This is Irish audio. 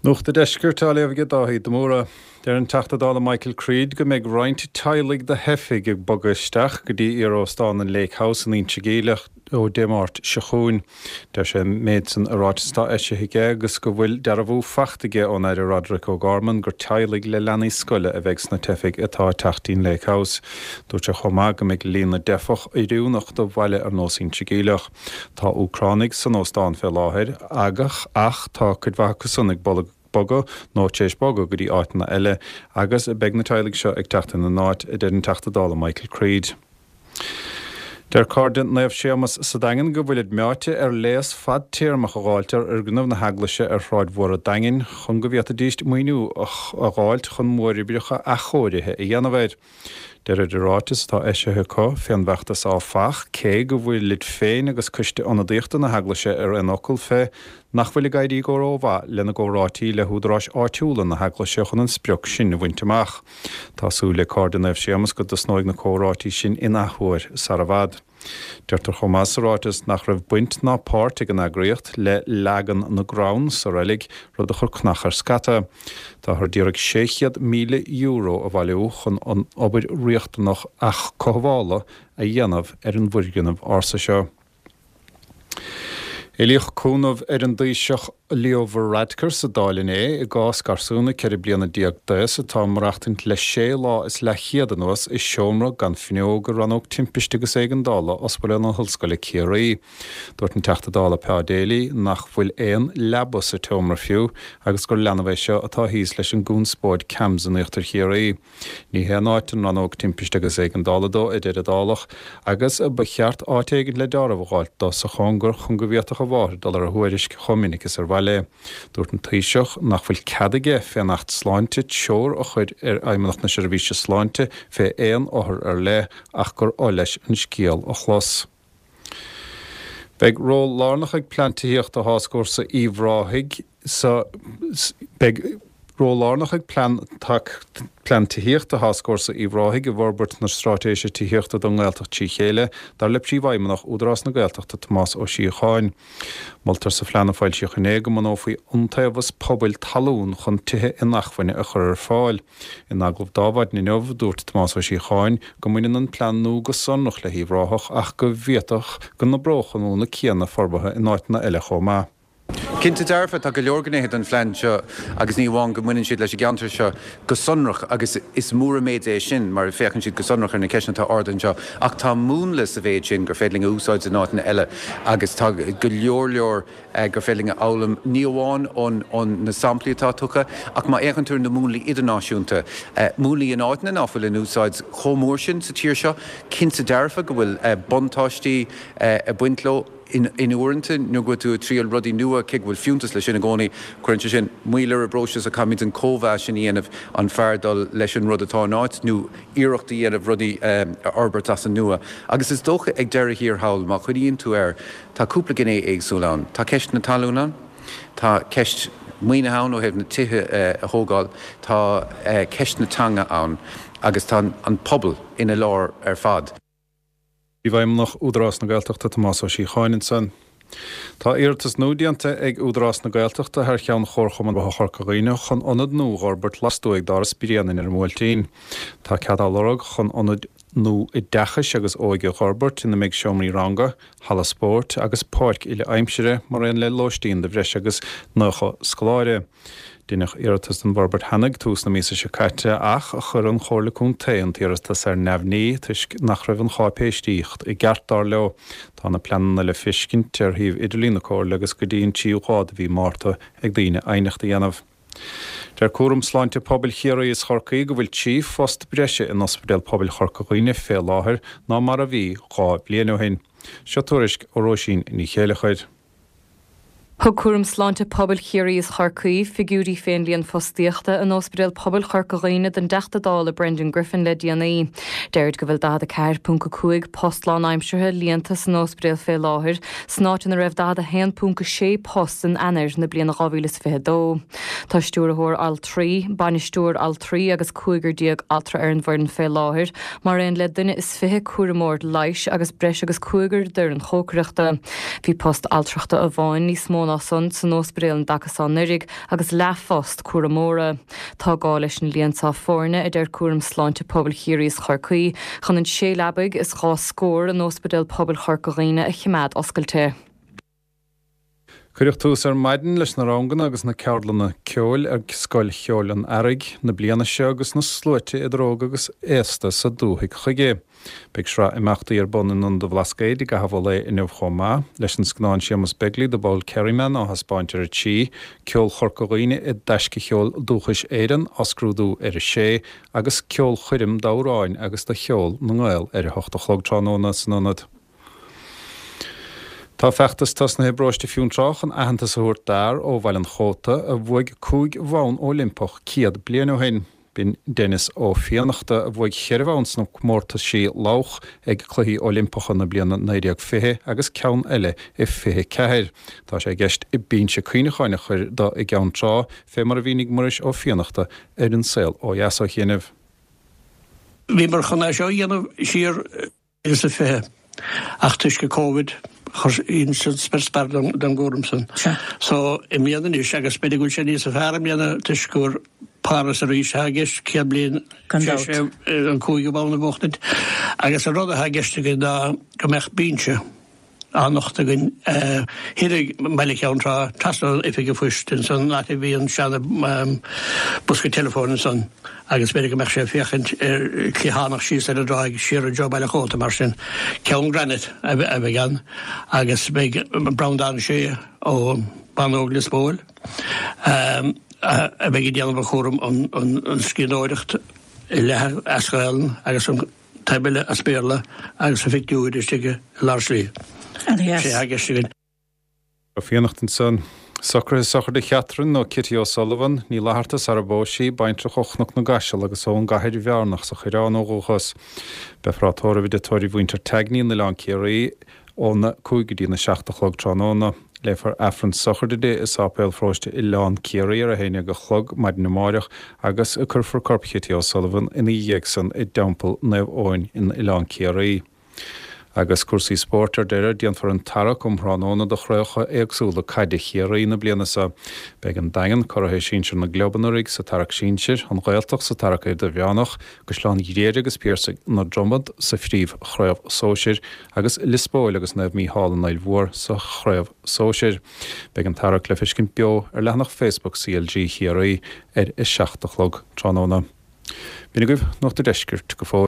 Nuacht an Deiscirt á léamh ag Dáithí de Mórdha. Deir an Teachta Dála Michael Creed go mbeidh roinnt teaghlaigh de theifigh ag bogadh isteach go dtí iar-óstán an Lake House in Inse Geimhleach ó Dé Máirt seo chugainn. Deir sé an méid san i ráiteas atá eisithe aige agus go bhfuil dearbhú faighte aige ón Aire Roderic O'Gorman gur teaghlaigh le leanaí scoile a bheidh sna teifigh atá ag teacht dtí'n Lake House. Dúirt sé chomh maith go mbeidh líon na dteifeach oiriúnach do bhaile ar nós Inse Geimhleach. Tá Úcránaigh san óstán fé láthair ach ach tá cuid mhaith acu san ag bogadh nó tar éis bogadh go dtí áiteanna eile agus beidh na teaghlaigh seo ag teacht ina n-áit, a deir an Teachta Dála Michael Creed. Deir Cairde Naomh Séamas sa Daingean go bhfuilid meáite ar léas fadtéarmach a dh'fháilt ar fhoirgneamh na heaglaise ar Shráid Mhór an Daingin chun go bhféadfaidíst maoiniú a dh'fháilt chun móroibreacha athchóirithe a dhéanamh air. Deirid i ráiteas atá eisithe acu fén bhfeachtas áfach, cé go bhfuilid féin agus coiste ionadaíochta na hEaglaise ar aon fhocal fé nach bhfuil ag éirí go rómhaith lena gcomhráití le húdaráis áitiúla na hEaglaise chun an sprioc sin a bhaint amach. Tá súil ag Cairde Naomh Séamas go dtosnóidh na comhráití sin in athuair sar i bhfad. Deirtear chomh maith sa ráiteas nach raibh baint ná páirt ag an eagraíocht le leagan na gcrann sa reilig, rud a chuir cnach ar scata. Táthar d'iarraidh €600,000 a bhailiú chun an obair riachtanach athchothabhála a dhéanamh ar an bhfoirgneamh ársa seo. Éilíodh cúnamh ar an dTaoiseach Leo Varadkar sa Dáil inné i gcás garsúna 14 bliana d'aos atá ag maireachtaint le sé lá is leathchéad anuas i seomra gan fuinneog i Rannóg Timpiste agus Éigeandála Ospidéal na hOllscoile Ciarraí. Dúirt an Teachta Dála Pa Daly nach bhfuil aon leaba sa tseomra fiú agus gur leanbh é seo atá thíos leis an gconspóid CAMHS in Íochtar Chiarraí. Ní haon áit an Rannóg Timpiste agus Éigeandála dó, a deir an Dálach, agus ba cheart áit éigin le deáramh a dh'fháilt dó sa chóngar chun go bhféadfadh a mháthair dul ar a thuairisc chomh minic is ar mhaith léi. Dúirt an Taoiseach nach bhfuil cead aige fén Acht Sláinte treoir a chur ar Fheidhmeannacht na Seirbhíse Sláinte fé aon othar ar leith ach gur oth leis an scéal a chlos. Beidh ról lárnach ag Plean Tithíochta Tháscfhórsa Uíbh Ráthaigh sa Beidh ról lárnach ag Plean Plean Tithíochta Tháscfhórsa Uíbh Ráthaigh i bhforbairt na Straitéise Tithíochta don nGaeltacht trí chéile, dar le Príomhfheidhmeannach Údarás na Gaeltachta Tomás Ó Síocháin. Moltar sa phlean a foilsíodh inné go mbunófaí iontaobhas pobail talún chun tithe inacmhainne a chur ar fáil. In agallamh d'Adhmhaidin inniu, dúirt Tomás Ó Síocháin go mbaineann an plean nua go sonrach le hUíbh Ráthach ach go bhféadfadh go n-oibreodh an múnla céanna forbartha in áiteanna eile chomh maith. Cinnte dearfa, tá go leor gnéithe den phlean seo agus ní amháin go mbaineann siad leis an gceantar seo go sonrach agus is mór an méid é sin mar féachann siad go sonrach ar na ceisteanna atá ardaithe anseo ach tá múnla sa mhéid sin gur féidir linn a úsáid in áiteanna eile agus tá go leor leor gur féidir linn a fhoghlaim, ní amháin ó na samplaí atá tugtha, ach má fhéachann tú ar na múnlaí idirnáisiúnta, múnlaí in áiteanna ná fuil in úsáid chomh mór sin sa tír seo, cinnte dearfa go bhfuil buntáistí ag baint leo. In uaireanta, nuair go bhfuil tú ag triail rudaí nua, cé go bhfuil fiúntas leis sin i gcónaí, cuireann sé sin moill ar an bpróiseas ach caithfimid an cóimheas sin a dhéanamh, an fearr dul leis an rud atá in áit nó iarracht a dhéanamh rudaí a fhorbairt as an nua. Agus is dócha ag deireadh thiar thall, má chuimhníonn tú air, Tá cúpla gné éagsúil ann. Tá ceist na talún ann, tá ceist maoinithe ann ó thaobh na tithe a thógáil, tá ceist na teanga ann agus tá an pobal ina lár ar fad. Príomhfheidhmeannach Údarás na Gaeltachta Tomás Ó Síocháin ansan. Tá iarratas nua déanta ag Údarás na Gaeltachta thar cheann Chomharchumann Forbartha Chorca Dhuibhne chun ionad nua a dh'fhorbairt lastuaidh d'Áras Bréanainn ar an mBuailtín. Tá cead á lorg chun ionad nua oideachais agus óige a dh'fhorbairt ina mbeidh seomraí ranga, halla spóirt agus páirc uile-aimsire mar aon le lóistín do bhreis agus 90 scoláire. Deineadh iarratas don bhforbairt cheana ag tús na míosa seo caite ach chuir an Chomhairle Contae an t-iarratas ar neamhní toisc nach raibh an cháipéisíocht i gceart, dar leo. Tá na pleananna le feiscint ar shuíomh idirlín na Comhairle agus go dtí an tríú lá de mhí Márta ag daoine aighneacht a dhéanamh. Deir Cúram Sláinte Pobail Chiarraí is Chorcaí go bhfuil 3 phost breise in Ospidéal Pobail Chorca Dhuibhne fé láthair ná mar a bhí 2 bhliain ó shin. Seo tuairisc ó Róisín Ní Chéileachair. Thug Cúram Sláinte Pobail Chiarraí is Chorcaí figiúirí fén líon fostaíochta in Ospidéal Pobail Chorca Dhuibhne don dTeachta Dála Brendan Griffin le déanaí. Deirid go bhfuil 44.5 post lánaimseartha líonta san ospidéal fé láthair, san áit ina raibh 41.6 post in Eanáir na bliana 2022. Tá stiúrthóir altraí, bainisteoir altraí agus 15 altra ar an bhfoireann fé láthair, mar aon le duine is 20 cúramóir leighis agus breis agus cúigear d'fhoireann chócaireachta. Bhí post altrachta amháin níos mó ná. ná san san óspidéal an dtaca so anuraidh agus leathphost cúramóra. Tá gá leis an líon so foirne, a deir Cúram Sláinte Pobail Chiarraí is Chorcaí, chun an sé leabaidh is dha scór in Óspidéal Pobail Chorca Dhuibhne a chimeád oscailte. Cuireadh tús ar maidin leis na ranganna agus na ceardlanna ceoil ar Scoil Cheoil an Earraigh na bliana seo agus na sluaite idir óg agus aosta sa dúthaigh chuige. Beidh sraith imeachtaí ar bun in Ionad an Bhlascaoid i gcaitheamh an lae inniu chomh maith, leis an scannán Séamus Begley, The Bold Kerryman á thaispeáint ar a 3, Ceol Chorca Dhuibhne i dTaisce Cheol Dúchais Éireann á scrúdú ar a 6 agus ceolchoirm d'amhráin agus do cheol na nGael ar a hocht a chlog tráthnóna san Ionad. Tá feachtas tosnaithe i bparóiste Fionntrá chun aitheantas a thabhairt d'fhear ó Bhaile an Chóta a bhuaigh 5 bhonn Oilimpeach 100 bliain ó shin. B'in Denis Ó Fiannachta a bhuaigh cheithre bhonn sna comórtaisí lodhach ag Cluichí Oilimpeacha na bliana 1920 agus ceann eile i 24. Tá sé i gceist binse cuimhneacháin a chur do i gCeann Trá, fé mar a mhínigh Muiris Ó Fiannachta ar An Saol Ó Dheas ó chianaibh. Bhíomar chun é seo a dhéanamh siar 2020 ach toisc an Covid chuir san spior spear don gcúram san. So i mbliana anois agus b'fhéidir go bhfuil sé níosa fearr i mbliana toisc gur Paris arís atá i gceist 100 bliain tar éis an cúigiú bonn a bhuachtaint agus an rud atá i gceist againn ná go mbeadh binse á nochtadh againn thoir i mbaile Cheann Trá, trasna ón oifig an phoist ansan, áit a bhí an seana bosca teileafóin ansan agus b'fhéidir go mbeadh sé ag féachaint ar cliathánach síos ar an dtráigh siar i dtreo Baile Chóta mar sin. Ceann granite a bheidh ann agus beidh Breandán Sé ó Bánóg Lios Póil a bheidh ag déanamh an chúram an scríbhneoireacht i leath as Gaelainn agus an taobh eile as Béarla agus a phictiúir istigh i lár slí. Sé atá i gceist againn. Ó Fiannachta ansan. Socruithe sochraide Chatherine nó Kitty O'Sullivan, Ní Fhlatharta sara bpós sí, baintreach ó Chnoc na gCaiseal agus ón gCathair Bhearnach sa Choireán ó dhúchas. Beifear á tórramh i dtigh tórraimh mhuintir Tagney in Oileán Ciarraí óna 5 go dtína 7 a chlog tráthnóna. Léifear Aifreann sochraide di i Sáipéal Pharóiste Oileán Ciarraí ar 11 a chlog maidin amáireach agus cuirfear corp Chitty O'Sullivan ina dhiaidh san i dTeampall Naomh Eoin in Oileán Ciarraí. Agus cúrsaí spóirt ar deireadh, déanfar an tarrac um thráthnóna do chraobhacha éagsúla caide Chiarraí na bliana seo. Beidh an Daingean, curaithe sinsir na gclub anuraidh, sa tarrac sinsir, an Ghaeltacht sa tarrac idirmheánach, Caisleán Ghriaire agus Piarsaigh na Dromad sa phríomh-chraobh sóisir agus Lios Póil agus Naomh Mícheál an Fhaill Mhór sa chraobh sóisir. Beidh an tarrac le feiscint beo ar leathanach Facebook CLG Chiarraí ar 7 a chlog tráthnóna. B'in agaibh Nuacht an Deiscirt go fóill.